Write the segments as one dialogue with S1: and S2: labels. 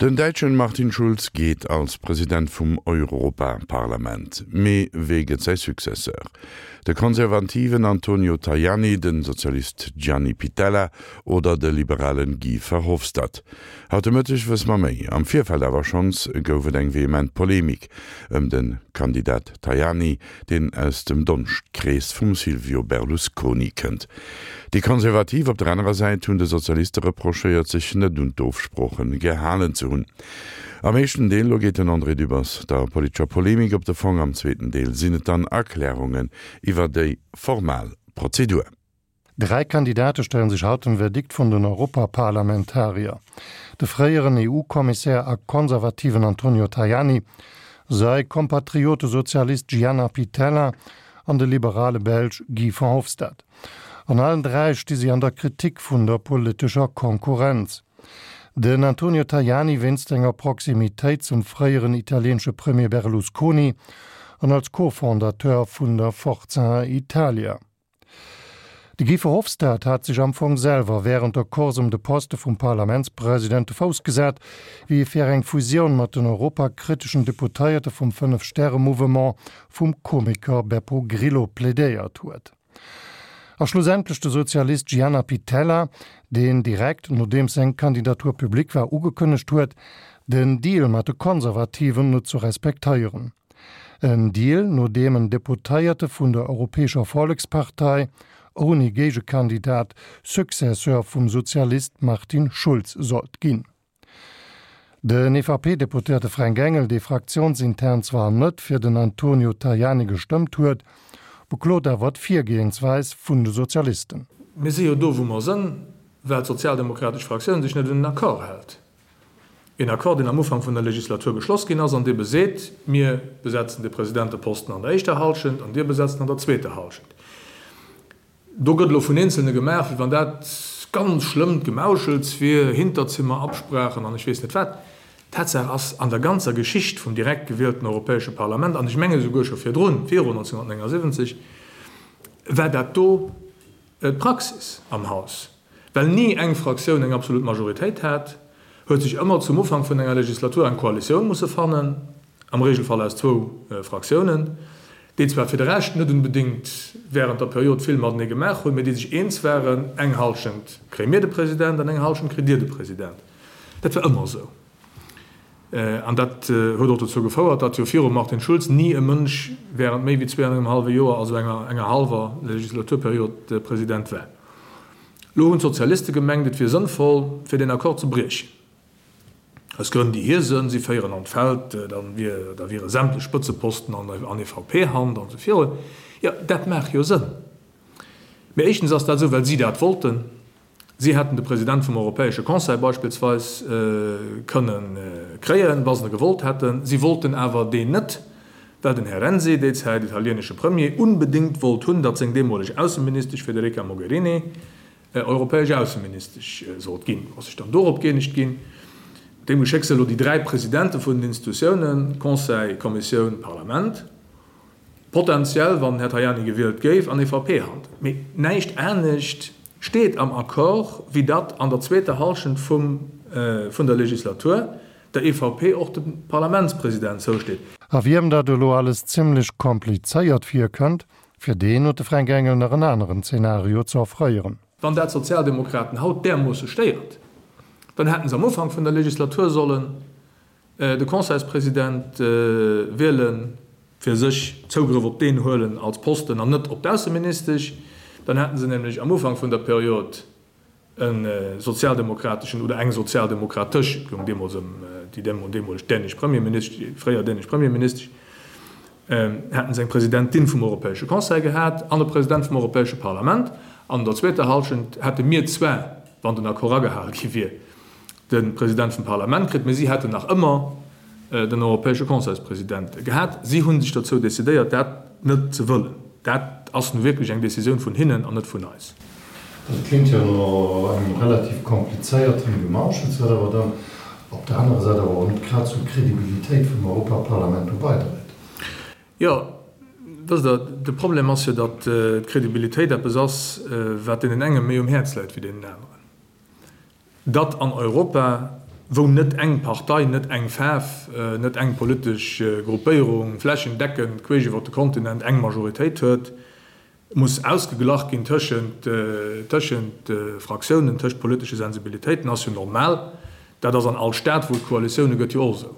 S1: Den däitschen Martin Schulz geet als President vum Europaparlament. Mee wee gëtt säi Successeur? De konservativen Antonio Tajani, den Sozialist Gianni Pittella oder de liberalen Guy Verhofstadt? Haut de Mëtteg wësse mer méi. Am Virfeld awer schonns gouf et eng vehement Polemik ëm de Kandidat Tajani, deen aus dem Donschtkrees vum Silvio Berlusconi kënnt. Déi Konservativ op der anerer Säit hunn de Sozialiste reprochéiert, sech net un d'Ofsprooche gehalen ze hunn. Am éischten Deel lo geet den André Dübbers der politescher Polemik op de Fong, am zweeten Deel sinn et dann Erklärungen iwwer déi formal Prozedur.
S2: Dräi Kandidate stellen sech haut dem Verdikt vun den Europaparlamentarier, de fréieren EU-Kommissär a Konservativen Antonio Tajani, säi Kompatriote Sozialist Gianna Pittella an de liberale Belsch Guy Verhofstadt. An allen dräi sti si an der Kritik vun der politescher Konkurrenz. Den Antonio Tajani wéinst enger Proximitéit zum fréieren italieenesche Premier Berlusconi an als Co-Fondateur vun der Forza Italia. De Guy Verhofstadt hat sech am Fong selwer wärend der Course ëm de Poste vum Parlamentspresident de Fouss gesat, wéi e fir eng Fusioun mat den europakriteschen Deputéierte vum Fënnef-Stäre-Mouvement vum Komiker Beppo Grillo plädéiert huet. A schlussendlech de Sozialist Gianna Pittella, deen direkt nodeems seng Kandidatur public war ugekënnegt huet, den Deal mat de Konservativen net ze respektéieren. En Deal, no deem en Deputéierte vun der Europäescher Vollekspartei ouni Géigekandidat Successeur vum Sozialist Martin Schulz sollt ginn. Den EVP-Deputéierte Fränk Engel, dee fraktiounsintern zwar net fir den Antonio Tajani gestëmmt huet, beklot awer d'Virgehensweis vun de Sozialisten.
S3: Mir si jo do, wou mer sënn, well d'sozialdemokratesch Fraktioun sech net un den Accord hält. Een Accord, deen am Ufank vun der Legislatur geschloss ginn ass an dee beseet, Mir besetzen de Presidenteposten an der éischter Halschent an Dir besetzt en an der zweeter Halschent. Do gëtt elo vun Eenzelne gemaach, wéi wann dat ganz schlëmmt Gemauschels wier, Hinterzimmerabsprachen an ech weess net wat. Tatsaach ass, an der ganzer Geschicht vum direkt gewielten Europäesche Parlament, an ech menge souguer scho virdrun, viru 1979, war dat do d'Praxis am Haus. Well ni eng Fraktioun eng absolut Majoritéit hat, huet sech ëmmer zum Ufank vun enger Legislatur eng Koalitioun musse fannen, am Regelfall aus zwou Fraktiounen, déi zwar fir de Rescht net unbedéngt während der Period vill matenee gemaach hunn, mee déi sech eens waren, eng Halschent kréie mir de President an eng Halschent kritt Dir de President. Dat war ëmmer esou. An dat huet och dozou gefouert, datt jo virum Martin Schulz ni e Mënsch während méi wéi zwee an engem hallwe Joer, also enger enger hallwer Legislaturperiod, President war. Elo hunn d'Sozialiste gemengt, et wier sënnvoll, fir deen Accord ze briechen. Aus Grënn, déi hir sënn, si féieren an d'Feld, da wier, da wiere sämtlech Spëtzeposten an an EVP-Hand an esou virun. Jo, dat maach jo Sënn. Mee éischtens ass dat esou, well si dat wollten. Si hätten de President vum Europäesche Conseil beispillsweis kënne kréien, wa se e gewollt hätten. Si wollten awer deen net, well den Här Renzi, déi Zäit italienesche Premier, unbedéngt wollt hunn, datt seng deemoleg Ausseministesch Federica Mogherini europäesch Ausseministesch sollt ginn. Ass sech dann dorop gëeenegt ginn. Deem Geschéck si elo déi dräi Presidente vun den Institutiounen, Conseil, Kommissioun, Parlament. Potentiell, wann den Här Tajani gewielt géif, an EVP-Hand. Mee näischt anescht steet am Accord, wéi datt an der zweeter Hallschent vum vun der Legislatur der EVP och de Parlamentspresident zousteet.
S2: A wiem dat elo alles zimmlech komplizéiert virkënnt, fir deen huet de Fränk Engel nach en aneren Zenario ze offréieren.
S3: Wann dat d'Sozialdemokraten haut därmoosse stéiert, dann hätten se am Ufank vun der Legislatur sollen De Conseilspresident wielen, fir sech Zougrëff op deen huelen als Posten an net op d'Ausseministesch, dann hätten se nämlech am Ufank vun der Period e sozialdemokrateschen oder eng sozialdemokratesch, et goung deemools ëm déi deemoleg dänesch Premierministesch, déi fréier dänesch Premierministesch, hätten se eng Presidentin vum Europäesche Conseil gehat an e President vum Europäesche Parlament. An der zweeter Hallschent hätte mir zwar, wann den Accord agehale gi wier, de President vum Parlament kritt, mee si hätten nach ëmmer den Europäesche Conseilspresident gehat. Si hu sech dozou decidéiert, dat net ze wëllen. Dat ass nu wierklech eng Decisioun vun hinnen an net vun eis.
S2: Dat kléngt jo no engem relativ komplizéierten Gemauschels, wat awer dann op der anerer Säit awer och net grad zur Kredibilitéit vum Europaparlament do beidréit.
S3: Jo, wësst Der, de Problem ass jo, datt d'Kredibilitéit eppes ass, wat deenen enge méi um Häerz läit wéi deenen aneren. Datt an Europa. wou net eng Partei, net eng Faarf, net eng politesch Gruppéierung flächendeckend queesch iwwer de Kontinent eng Majoritéit huet, muss ausgeglach ginn tëschent tëschent Fraktiounen, tëscht politesche Sensibilitéiten, ass jo normal. Dat ass an all Staat, wou et Koalitioune gëtt, jo och esou.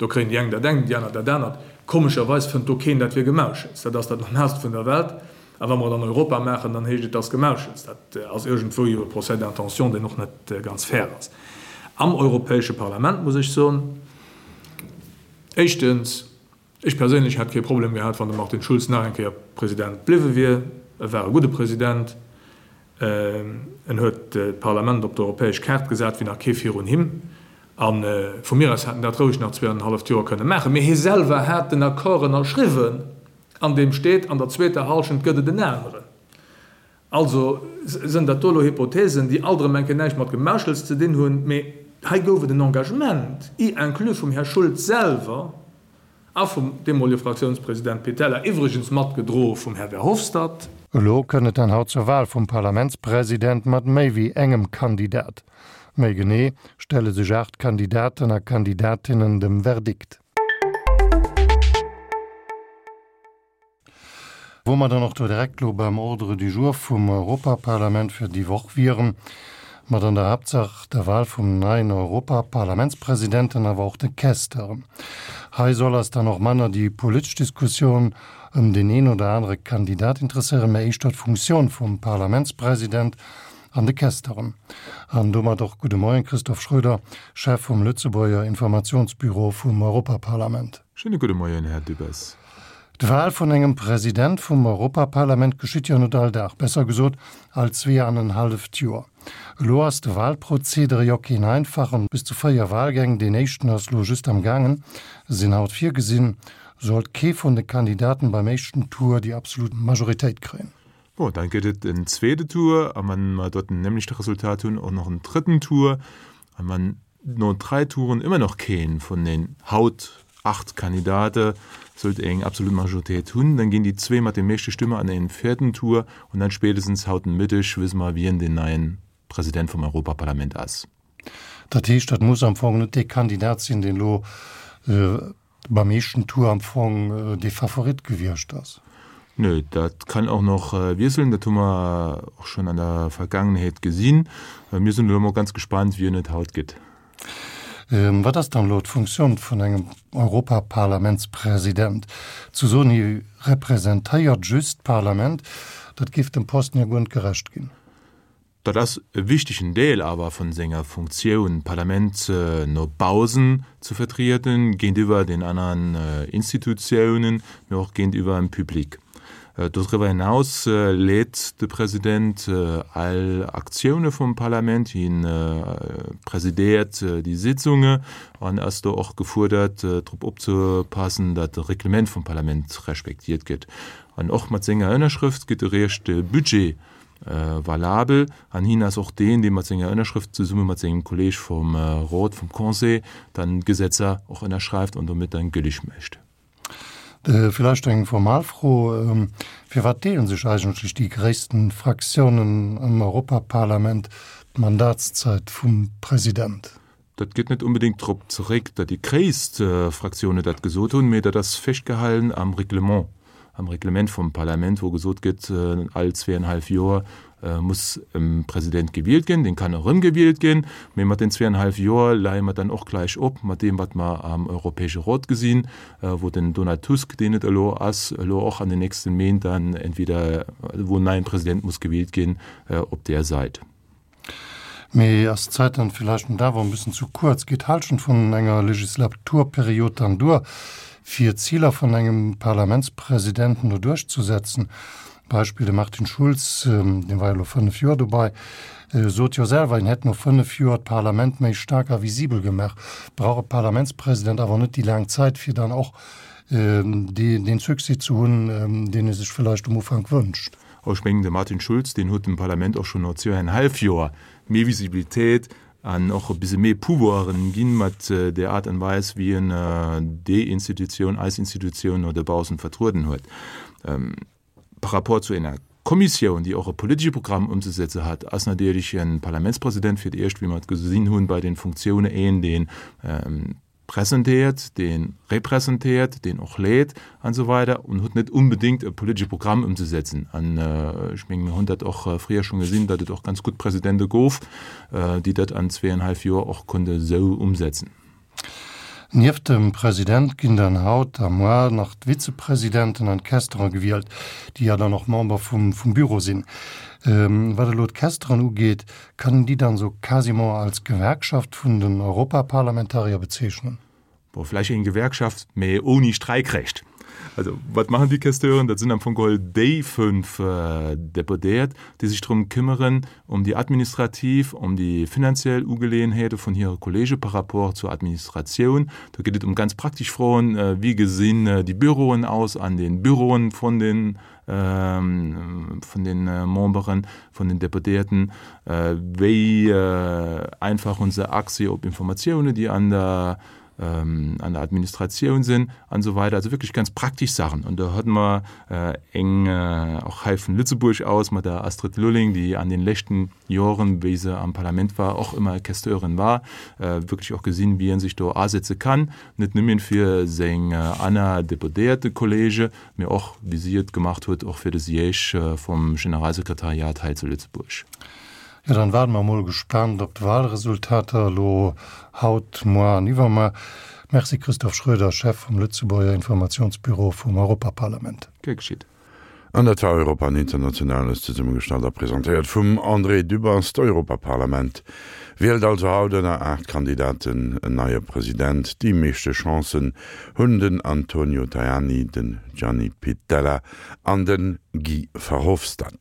S3: Do kréien déi eng dat engt, déi aner dat anert. Komescherweis fënnt do keen, dat wier Gemauschels. Dat ass dat Normaalst vun der Welt. A wa mer et an Europa maachen, dann heescht et, dat ass Gemauschels. Dat ass iergendwou jo e Procès d'intention, deen och net ganz fair ass. Am Europäesche Parlament muss ech soen, éischtens, ech perséinlech hätt kee Problem gehat, wann de Martin Schulz nach eng Kéier President bliwwe wier. E war e gudde President. En huet d'Parlament op d'europäesch Kaart gesat wéi nach kee virun him. A vu mir aus hätt en dat roueg nach zweeanenhalleft Joer kënne maachen. Mee hie selwer hat den Accord ënnerschriwwen, an deem steet, an der zweeter Hallschent gëtt et en aneren. Also sënn dat do elo Hypothesen, déi alt erëm eng Kéier näischt mat Gemauschels ze dinn hunn. Mee hei gouf et en Engagement, y inclus vum Här Schulz selwer, A vum deemolege Fraktiounspresident Pittella, iwwregens matgedroe vum Här Verhofstadt.
S2: Elo kënnt et dann haut zur Wahl vum Parlamentspresident mat méi wéi engem Kandidat. Méi genee stelle sech 8 Kandidaten a Kandidatinnen dem Verdikt. Wou mer dann och do direkt elo beim Ordre du jour vum Europaparlament fir déi Woch wieren, mat an der Haaptsaach der Wahl vum neien Europaparlamentspresidenten, awer och de Questeuren. Hei soll eis dann och manner déi politesch Diskussioun ëm deen een oder anere Kandidat interesséieren, mä éischter d'Funktioun vum Parlamentspresident an de Questeuren. An domat och gudde Moien, Christophe Schroeder, Chef vum Lëtzebuerger Informationsbüro vum Europaparlament.
S4: Schéine gudde Moien, Här Dübbers.
S2: D'Wahl vun engem President vum Europaparlament geschitt jo net all Dag, besser gesot all zweeanenhalleft Joer. Elo ass de Wahlprozedere jo keen einfachen, bis zu 4 Wahlgäng, deen éischten ass lo just am gaangen, sinn haut virgesinn, sollt kee vun de Kandidaten beim éischten Tour déi absolut Majoritéit kréien.
S4: Bon, dann gëtt et en zweete Tour, a wann mer dort den nämlechte Resultat hunn, och nach en drëtten Tour, a wann no 3 Touren ëmmer nach keen vun den haut 8 Kandidate sollt eng absolut Majoritéit hunn, dann ginn déi zwee mat de meeschte Stëmme an en vierten Tour an dann spätestens haut den Mëtteg wësse mer wien den neien President vum Europaparlament ass.
S2: Dat heescht, dat muss am Fong net dee Kandidat sinn, deen elo Beim éischten Tour am Fong dee Favorit gewiescht ass.
S4: Nö, dat kann och nach wiesselen, dat hu mer och schonn an der Vergaangenheet gesinn. Mir sinn elo mol ganz gespannt, wien et haut gëtt.
S2: Wat ass dann elo d'Funktioun vun engem Europaparlamentspresident? Ze soen, hie representéiert just d'Parlament, dat géif dem Posten jo guer net gerecht ginn.
S4: Dat ass e wichtegen Deel awer vun senger Funktioun, d'Parlament no bausen ze vertrieden, géintiwwer den aneren Institutiounen, mee och géintiwwer dem Public. Doriwwer hinaus leet de President all Aktioune vum Parlament, hien presidéiert déi Sitzunge an ass do och gefuerdert, drop opzepassen, datt de Reglement vum Parlament respektiert gëtt. An och mat senger Ënnerschrëft gëtt eréischt de Budget valabel an hien ass och deen, dee mat senger Ënnerschrëft zesumme mat sengem Kolleeg vum Rot, vum Conseil, dann d'Gesetzer och ënnerschreift an domat dann gülleg mécht.
S2: Villäicht eng formal Fro, Firwat deele sech eigentlech déi gréissten Fraktiounen am Europaparlament d'Mandatszäit vum President?
S4: Dat geet net onbedéngt drop zeréck, datt déi gréisst Fraktioune dat gesot hunn, mee dat ass festgehalen am Reglement, am Reglement vum Parlament, wou gesot gëtt, all zweeënhallef Joer muss e President gewielt ginn. Deen kann erëmgewielt ginn, mee mat den zweeënhallef Joer leie mer dann och gläich op mat deem, wat mer am Europäesche Rot gesinn, wou den Donald Tusk, deen et elo ass, elo och an den nächste Méint dann entweder, wou en neien President muss gewielt ginn op där Säit.
S2: Mee ass d'Zäit dann villäicht net awer en bëssen zu kuerz? Geet d'Halschent vun enger Legislaturperiod dann duer, fir d'Ziler vun engem Parlamentspresidenten do duerchzusetzen? Beispill, de Martin Schulz, dee war jo elo 5 Joer dobei, sot jo selwer, hien hätt no 5 Joer d'Parlament méi staark a visibel gemaach. Brauch e Parlamentspresident awer net déi laang Zäit, fir dann och dee Succès ze hunn, deen e sech villäicht um Ufank wënscht?
S4: Ech mengen, de Martin Schulz, deen huet dem Parlament och schonn no zweieinhalb Joer méi Visibilitéit an och e bisse méi Pouvoiren ginn, mat där Aart an Weis, wéi en déi Institutioun, eis Institutioun, no dobaussen vertrueden huet. Par rapport zu enger. Kommissioun, déi och e politesche Programm ëmzesetze hat, ass natierlech e Parlamentspresident fir d'éischt, wéi mer et gesinn hunn bei den Funktioune, een, dee presentéiert, dee representéiert, deen och leet an esou weider an huet net unbedéngt e politesche Programm ëmzesetzen. An ech mengen, mir hunn dat och fréier schonn gesinn, datt et och ganz gutt Presidente gouf, déi dat an zweeënhallef Joer och konnte esou umsetzen.
S2: Nieft dem President ginn dann haut a moar nach d'Vizepresidenten an d'Questeren gewielt, déi ja dann och Member vum Büro sinn. Wat elo d'Questeren ugeet, kann een déi dann esou quasiment als Gewerkschaft vun den Europaparlamentarier bezeechnen?
S4: Bon, vläicht eng Gewerkschaft, mee ouni Streikrecht. Also, wat maachen déi Questeuren? Dat sinn am Fong geholl déi fënnf Deputéiert, déi sech drëm këmmeren, ëm déi administrativ, ëm déi finanziell Ugeleeënheete vun hire Kollege par rapport zur Administratioun. Do geet et ëm ganz praktesch Froen, Wéi gesinn déi Büroen aus an de Büroen vun den, vun de Memberen, vun den Deputéierten? Wéi einfach hu se Accès op Informatiounen, déi an der an der Administratioun sinn an esou weider. Also wierklech ganz praktesch Saachen. An do hate mer eng och hei vun Lëtzebuerg aus mat der Astrid Lulling, déi an den leschten Joren, wéi se am Parlament war, och ëmmer Questeurin war, wierklech och gesinn, wéi ee sech do asetze kann, net nëmmen fir seng aner deputéierte Kollege, mee och, wéi si et gemacht huet, och fir de Siège vum Generalsekretariat hei zu Lëtzebuerg.
S2: Jo, dann waarden mer mol gespaant op d'Wahlresultater elo haut, moar an iwwermoar. Merci Christophe Schroeder, Chef vum Lëtzebuerger Informationsbüro vum Europaparlament.
S4: Gär geschitt.
S1: An dat war Europa an Internationales, zesummegestallt a presentéiert vum André Dübbers. D'Europaparlament wielt also haut ënner 8 Kandidaten en neie President. Déi meeschte Chancen hunn den Antonio Tajani, den Gianni Pittella an de Guy Verhofstadt.